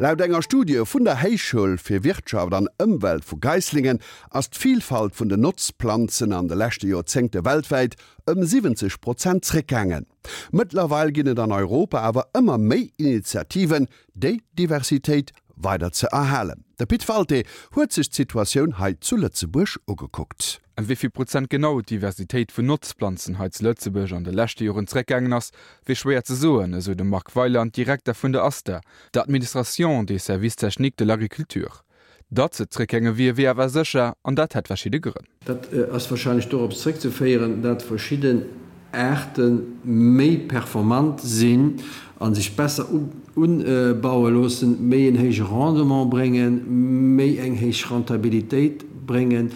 Laut enger Studie vun der Héichschoul fir Wirtschaft an Ëmwelt vu Geislingen ass d'Vilfalt vun den Notzplanzen an de leschte Joerzéngte weltwäit ëm 70 Prozent zréckgaangen. Mëttlerweil ginn et an Europa awer ëmmer méi Initiativen, déi Diversitéit weider ze erhalen. De Pit Walté huet sech d'Situatioun hei zu Lëtzebuerg ugekuckt. Ëm wéi vill Prozent genau d'Diversitéit vun Notzplanzen hei zu Lëtzebuerg an de leschte Joren zeréckgaangen ass, wier schwéier ze soen, esou de Marc Weyland, Direkter vun der ASTA, der Administration des services techniques de l'agriculture. Datt se zréckgaange wier, wier awer sécher, an dat hätt verschidde Grënn. Dat ass warscheinlech dorops zréckzeféieren, dat verschidden Aarte méi performant sinn a sech besser ubaue loossen, méi en héije Rendement bréngen, méi eng héich Rentabilitéit bréngen,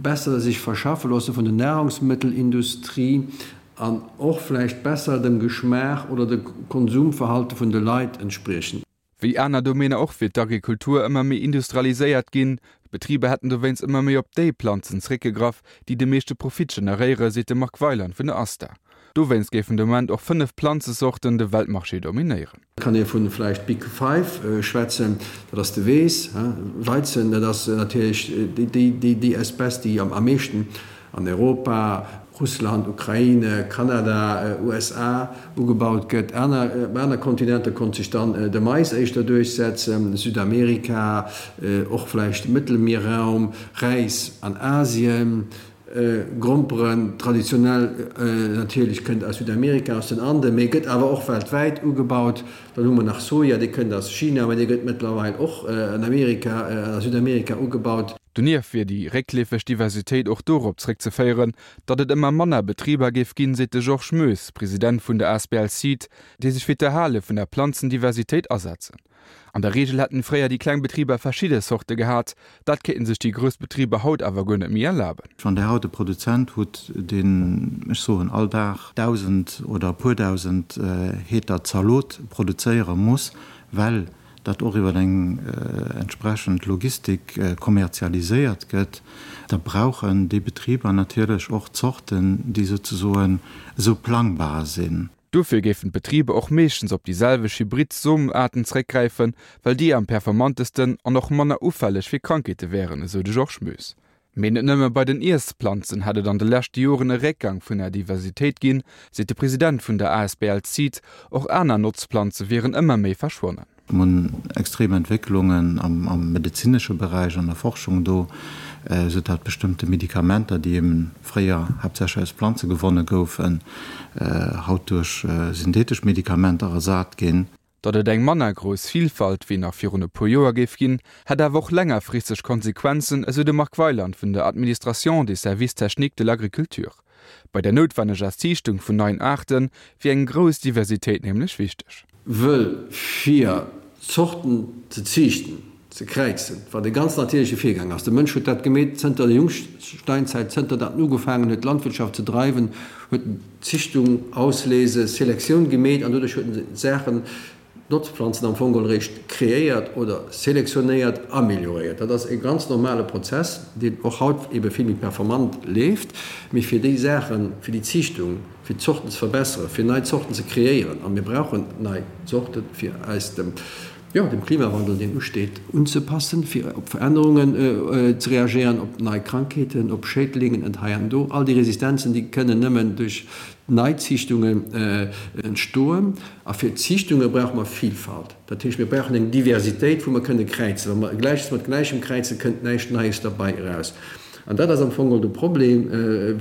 besser sech verschaffe loosse vun der Nahrungsmëttelindustrie an och vläicht besser dem Geschmaach oder dem Konsumverhalte vun de Leit entspriechen. Wéi aner Domäner och wier d'Agrikultur ëmmer méi industrialiséiert ginn. D'Betriber hätten dowéinst ëmmer méi op déi Planzen zeréckgegraff, déi de meeschte Profit generéieren, seet de Marc Weyland vun der ASTA. Dowéinst géifen de Moment och 5 Planzesorten de Weltmarché dominéieren. Et kann ee vu vläicht Big Five schwätzen, dat ass de Weess, Weizen, dat ass natierlech déi Espèce, déi am meeschten an Europa, Russland, Ukraine, Kanada, USA, ugebaut gëtt. Op aner Kontinenter konnt sech dann de Mais éischter duerchsetzen, Südamerika, och vläicht Mëttelmierraum, Räis an Asien, Gromperen, traditionell natierlech kënnt aus Südamerika, aus den Anden, mee gëtt awer och weltwäit ugebaut. Dann hu mer nach Soja, dee kënnt aus China, mee dee gëtt mëttlerweil och an Amerika, a Südamerika ugebaut. Donieft wier déi réckleefeg Diversitéit och dorop zréckzeféieren, datt et ëmmer manner Betriber géif ginn, seet de Georges Moes, President vun der asbl Seed, déi sech fir d'Erhale vun der Planzendiversitéit asetzen. An der Reegel hätten fréier déi kleng Betriber verschidde Zorte gehat, dat kéinten sech déi grouss Betriber haut awer guer net méi erlaben. Wann Der haut e Produzent hutt, deen, ech soen, all Dag 1.000 oder e puer 1.000 Heter Zalot produzéiere muss, well dat och iwwer eng entsprechend Logistik kommerzialiséiert gëtt, da brauchen déi Betriber natierlech och Zorten, déi souzesoen esou plangbar sinn. Dofir géifen d'Betriber och meeschtens op déi selwecht Hybrid-Somenaarten zeréckgräifen, well déi am performantesten an och manner ufälleg fir Krankheete wären, esou de Georges Moes. Mee net nëmme bei den Iessplanzen hätt et an de leschte Joren e Réckgang vun der Diversitéit ginn, seet de President vun der asbl Seed. Och aner Notzplanze wieren ëmmer méi verschwonnen. Mir hunn extrem Entwécklungen am medezinesche Beräich, an der Forschung do, esou dat bestëmmte Medikamenter, déi eben fréier haaptsächlech aus Planze gewonne goufen, haut duerch synthetesch Medikamenter ersat ginn. Datt et eng manner grouss Vilfalt wéi nach virun e puer Joer géif ginn, hätt awer och längerfristeg Konsequenzen, esou de Marc Weyland vun der Administration des services techniques de l'agriculture. Bei der noutwenneger Ziichtung vun neien Aarte wier eng grouss Diversitéit nämlech wichteg. Wëll fir Zorten ze ziichten, ze kräizen, wat e ganz natierleche Virgang ass, de Mënsch huet dat gemeet zënter der Jungsteinzeit, zënter datt en ugefaangen huet Landwirtschaft ze dreiwen, huet en Zichtung, Auslese, Selektioun gemeet an doduerch huet en Saachen, Notzplanzen am Fong geholl eréischt kreéiert oder selektionéiert, amelioréiert. Dat ass e ganz normale Prozess, deen och haut ebe vill méi performant leeft. Mee fir déi Saachen, fir déi Zichtung, fir d'Zorten ze verbesseren, fir nei Zorten ze kreéieren, a mir brauchen nei Zorten, fir eis dem, jo, dem Klimawandel, deen usteet, unzepassen, fir op Verännerungen ze reagéieren, op nei Krankheeten, op Schädlingen et hei an do. All déi Resistenzen, déi kënnen nëmmen duerch Neiziichtungen entstoen. A fir Ziichtunge brauche mer Vilfalt. Dat heescht, mir brauchen eng Diversitéit, wou mer kënne kräizen. Wa mer Gläiches mat Gläichem kräizen, kënnt näischt Neies derbei eraus. An dat ass am Fong och de Problem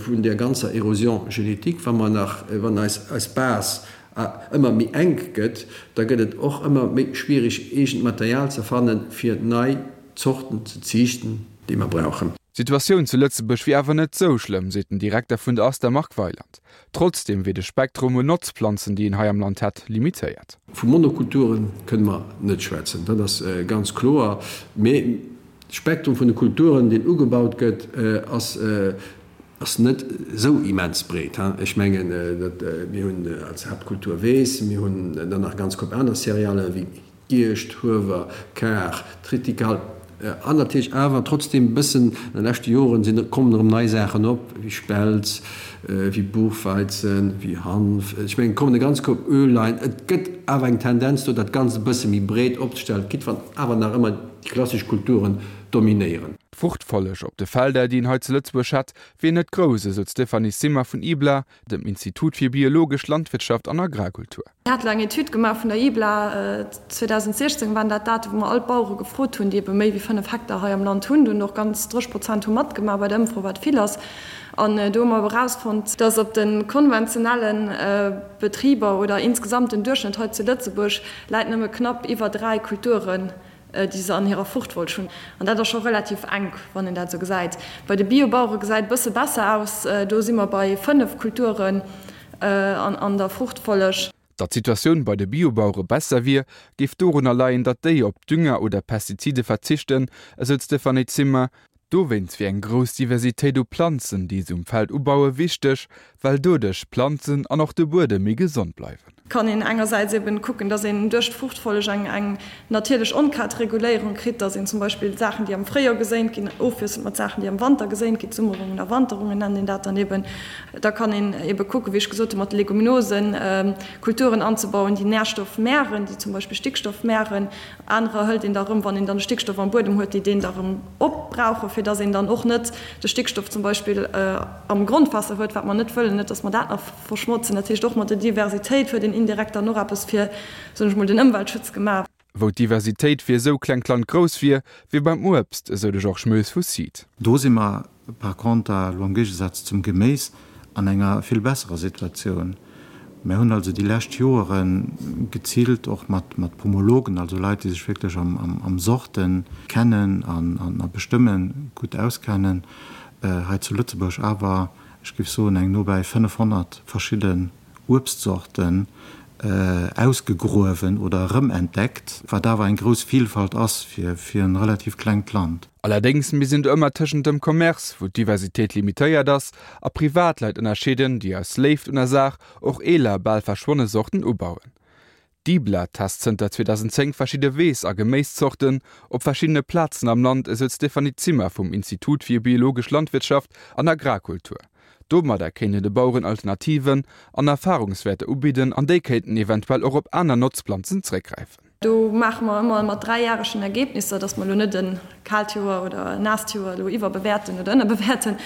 vun där ganzer Érosion génétique, wa mer nach, wann eis, eis Base a ëmmer méi enk gëtt, da gëtt et och ëmmer méi schwierig, eegent Material ze fannen, fir nei Zorten ze ziichten, déi mer brauchen. D'Situatioun zu Lëtzebuerg wier awer net sou schlëmm, seet den Direkter vun der ASTA Marc Weyland. Trotzdeem wier de Spektrum un Notzplanzen, déi een hei am Land hätt, limitéiert. Vu Monokulture kënne mer net schwätzen, dat ass ganz kloer. Mee de Spektrum vun de Kulturen, deen ugebaut gëtt, ass Ass net esou immens breet. Ech mengen, dat mir hunn als Haaptkultur Weess, mir hunn dann nach e ganz Koup aner Céréalë wéi Gierscht, Huewer, Kar, Tritikal. An natierlech awer trotzdem e bëssen, an de leschte Joren sinn, kommen erëm nei Saachen op, wéi Spelz, wéi Buchweizen, wéi Hanf, ech mengen, et kommen e ganz Koup Öllein. Et gëtt awer eng Tendenz do, dat Ganzt e bësse méi breet opzestellen, quitte wann awer nach ëmmer déi klassesch Kulturen dominéieren. D'Fruchtfolleg op de Felder, déi een hei zu Lëtzebuerg hätt, wier net grouss, esou d'Stéphanie Zimmer vun IBLA, dem Institut fir biologesch Landwirtschaft an Agrarkultur. Mir hate eng Etüd gemaach vun der IBLA, 2016 waren dat d'Date wou mer all d'Bauere gefrot hunn, déi ebe méi wéi 5 Hektar hei am Land hunn. Do hunn och ganz 30 Prozent hu matgemaach bei der Ëmfro, wat vill ass. An do hu mer ebe erausfonnt, dass op de konventionelle Betriber oder insgesamt den Duerchschnëtt hei zu Lëtzebuerg läit nëmme knapp iwwer 3 Kulturen, déi se an hirer Fruchtfolg hunn. An dat ass scho relativ enk, wann een dat esou gesäit. Bei de Biobauere gesäit e bësse besser aus, do si mer bei 5 Kulturen an der Fruchtfolleg. Datt d'Situatioun bei de Biobauere besser wier, géif dorunner leien, datt déi op Dünger oder Pestizide verzichten, esou d'Stéphanie Zimmer. Dowéinst wier eng grouss Diversitéit u Planzen, déi se um Feld ubaue wichteg, well doduerch d'Planzen an och de Buedem méi gesond bleiwen. Kann een engersäits eben kucken, dass een duerch d'Fruchtfolleg eng eng natierlech Onkrautreguléierung kritt, dass een zum Beispill Saachen, déi am Fréijoer geséint ginn, ofwiesselt mat Saachen, déi am Wanter geséint ginn, Summerungen a Wanterungen nennt een dat dann eben. Da kann een ebe kucken, wéi ech gesot hunn, mat de Leguminosen Kulturen anzebauen, déi Nährstoff mären, déi zum Beispill Stickstoff mären. Anerer hëlt een da erëm, wann een dann de Stickstoff am Buedem huet, déi deen da erëm opbrauchen, fir dass een dann och net de Stickstoff zum Beispill am Grondwaasser huet, wat mer net wëllen, net dass mer dat nach verschmotzen. Dat heescht, och mat der Diversitéit huet een indirekt dann och eppes fir, soen ech mol, den Ëmweltschutz gemaach. Wou d'Diversitéit fir esou klengt Land grouss wier, wier beim Uebst, esou de Georges Moes vu Seed. Do si mer par conter elo am Géigesaz zum Geméis an enger vill besserer Situatioun. Mär hunn also déi lescht Joere geziilt och mat Pomologen, also Leit, déi sech wierklech am Sorten kennen an a bestëmmen gutt auskennen, hei zu Lëtzebuerg awer, ech géif soen, eng nobäi 500 verschidden Uebstzorten ausgegruewen oder erëmentdeckt, wat awer eng grouss Vielfalt ass fir e relativ klengt Land. Allerdéngs misst een do ëmmer tëschent dem Commerce, wou d'Diversitéit limitéiert ass, a Privatleit ënnerscheeden, déi aus Léift un der Saach och eeler, bal verschwonne Sorten ubauen. D'IBLA test zënter 2010 verschidde Weess a Geméiszorten op verschiddene Plazen am Land, esou d'Stéphanie Zimmer vum Institut fir biologesch Landwirtschaft an Agrarkultur. Domadder kéint een de Baueren Alternativen an Erfarungswäerter ubidden an déi kéinten eventuell och op aner Notzplanzen zréckgräifen. Do maache mer ëmmer mat dräijäregen Ergebnisser, dass mer elo net e kaalt Joer oder e naasst Joer elo iwwerbewäerten oder ënnerbewäerten,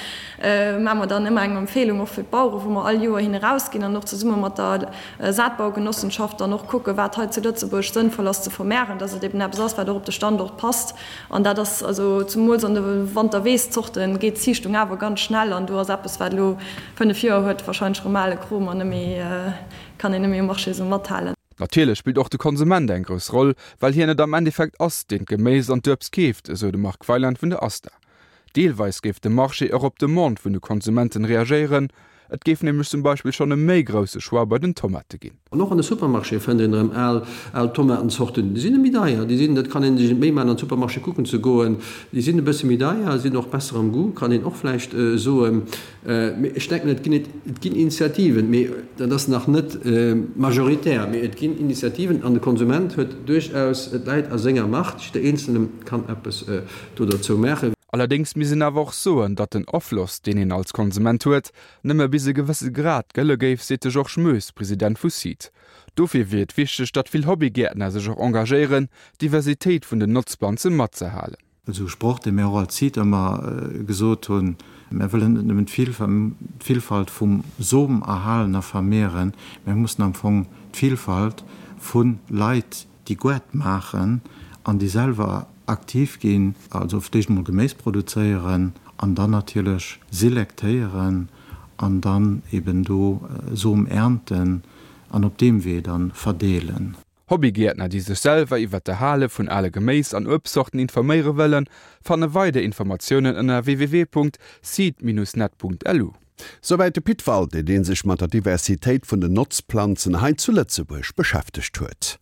maache mer dann ëmmer eng Empfehlung och fir d'Bauere wou mer all Joer hin erausginn an och zesumme mat der Saatbaugenossenschaft dann och kucken, wat hei zu Lëtzebuerg sënnvoll ass ze vermehren, dass et eben eppes ass, wat och op de Standort passt. An dat ass also zemools an de Wanterweeszorten geet d'Ziichtung awer ganz schnell an do ass eppes, wat elo 5 Joer huet, wahrscheinlech erëm ale Krom an net méi, kann een net méi um Marché esou mathalen. Natierlech spillt och de Konsument eng grouss Roll, well hien et am Endeffekt ass, deen d'Geméis an d'Uebst keeft, esou de Marc Weyland vun der ASTA. Deelweis géif de Marché och op d'Demande vun de Konsumenten reagéieren, et géif nämlech zum Beispill schonn e méi grousse Choix bei den Tomate ginn. An och an de Supermarchéë fënnt een erëm al, al Tomatenzorten. Déi sinn méi deier, déi sinn, dat kann ee sech net méi maachen, an de Supermarché kucken ze goen, déi sinn e bësse méi deier, sinn och besser am Goût, kann een och vläicht soen. Mee ech denken, et ginn, et ginn Initiativen, mee dat ass nach net majoritär, mee et ginn Initiativen an de Konsument huet duerchaus, et läit a senger Macht, jidder Eenzelne kann eppes do derzou maachen. Allerdéngs misst een awer och soen, datt den Afloss, deen een als Konsument huet, nëmme bis e gewësse Grad gëlle géif, seet de Georges Moes, President vu Seed. Dofir wier et wichteg, datt vill Hobbygäertner sech och engagéieren, d'Diversitéit vun den Notzplanze matzehalen. Esou e Sproch, dee mir och als Seed ëmmer gesot hunn, Mir wëllen net nëmmen d'Villfalt vum Som erhalen a vermehren, mir mussen am Fong d'Villfalt vu Leit, déi Goart maachen an déi selwer aktiv ginn, also fir d'éischt emol Geméis produzéieren an dann natierlech selektéieren an dann eben do Som ernten an op deem Wee dann verdeelen. Hobbygäertner, déi sech selwer iwwer d'Erhale vun ale Geméis an Uebstzorten informéiere wëllen, fanne weider Informatiounen ënner www.seed-net.lu. Souwäit de Pit Walté, dee sech mat der Diversitéit vun den Notzplanzen hei zu Lëtzebuerg beschäftegt huet.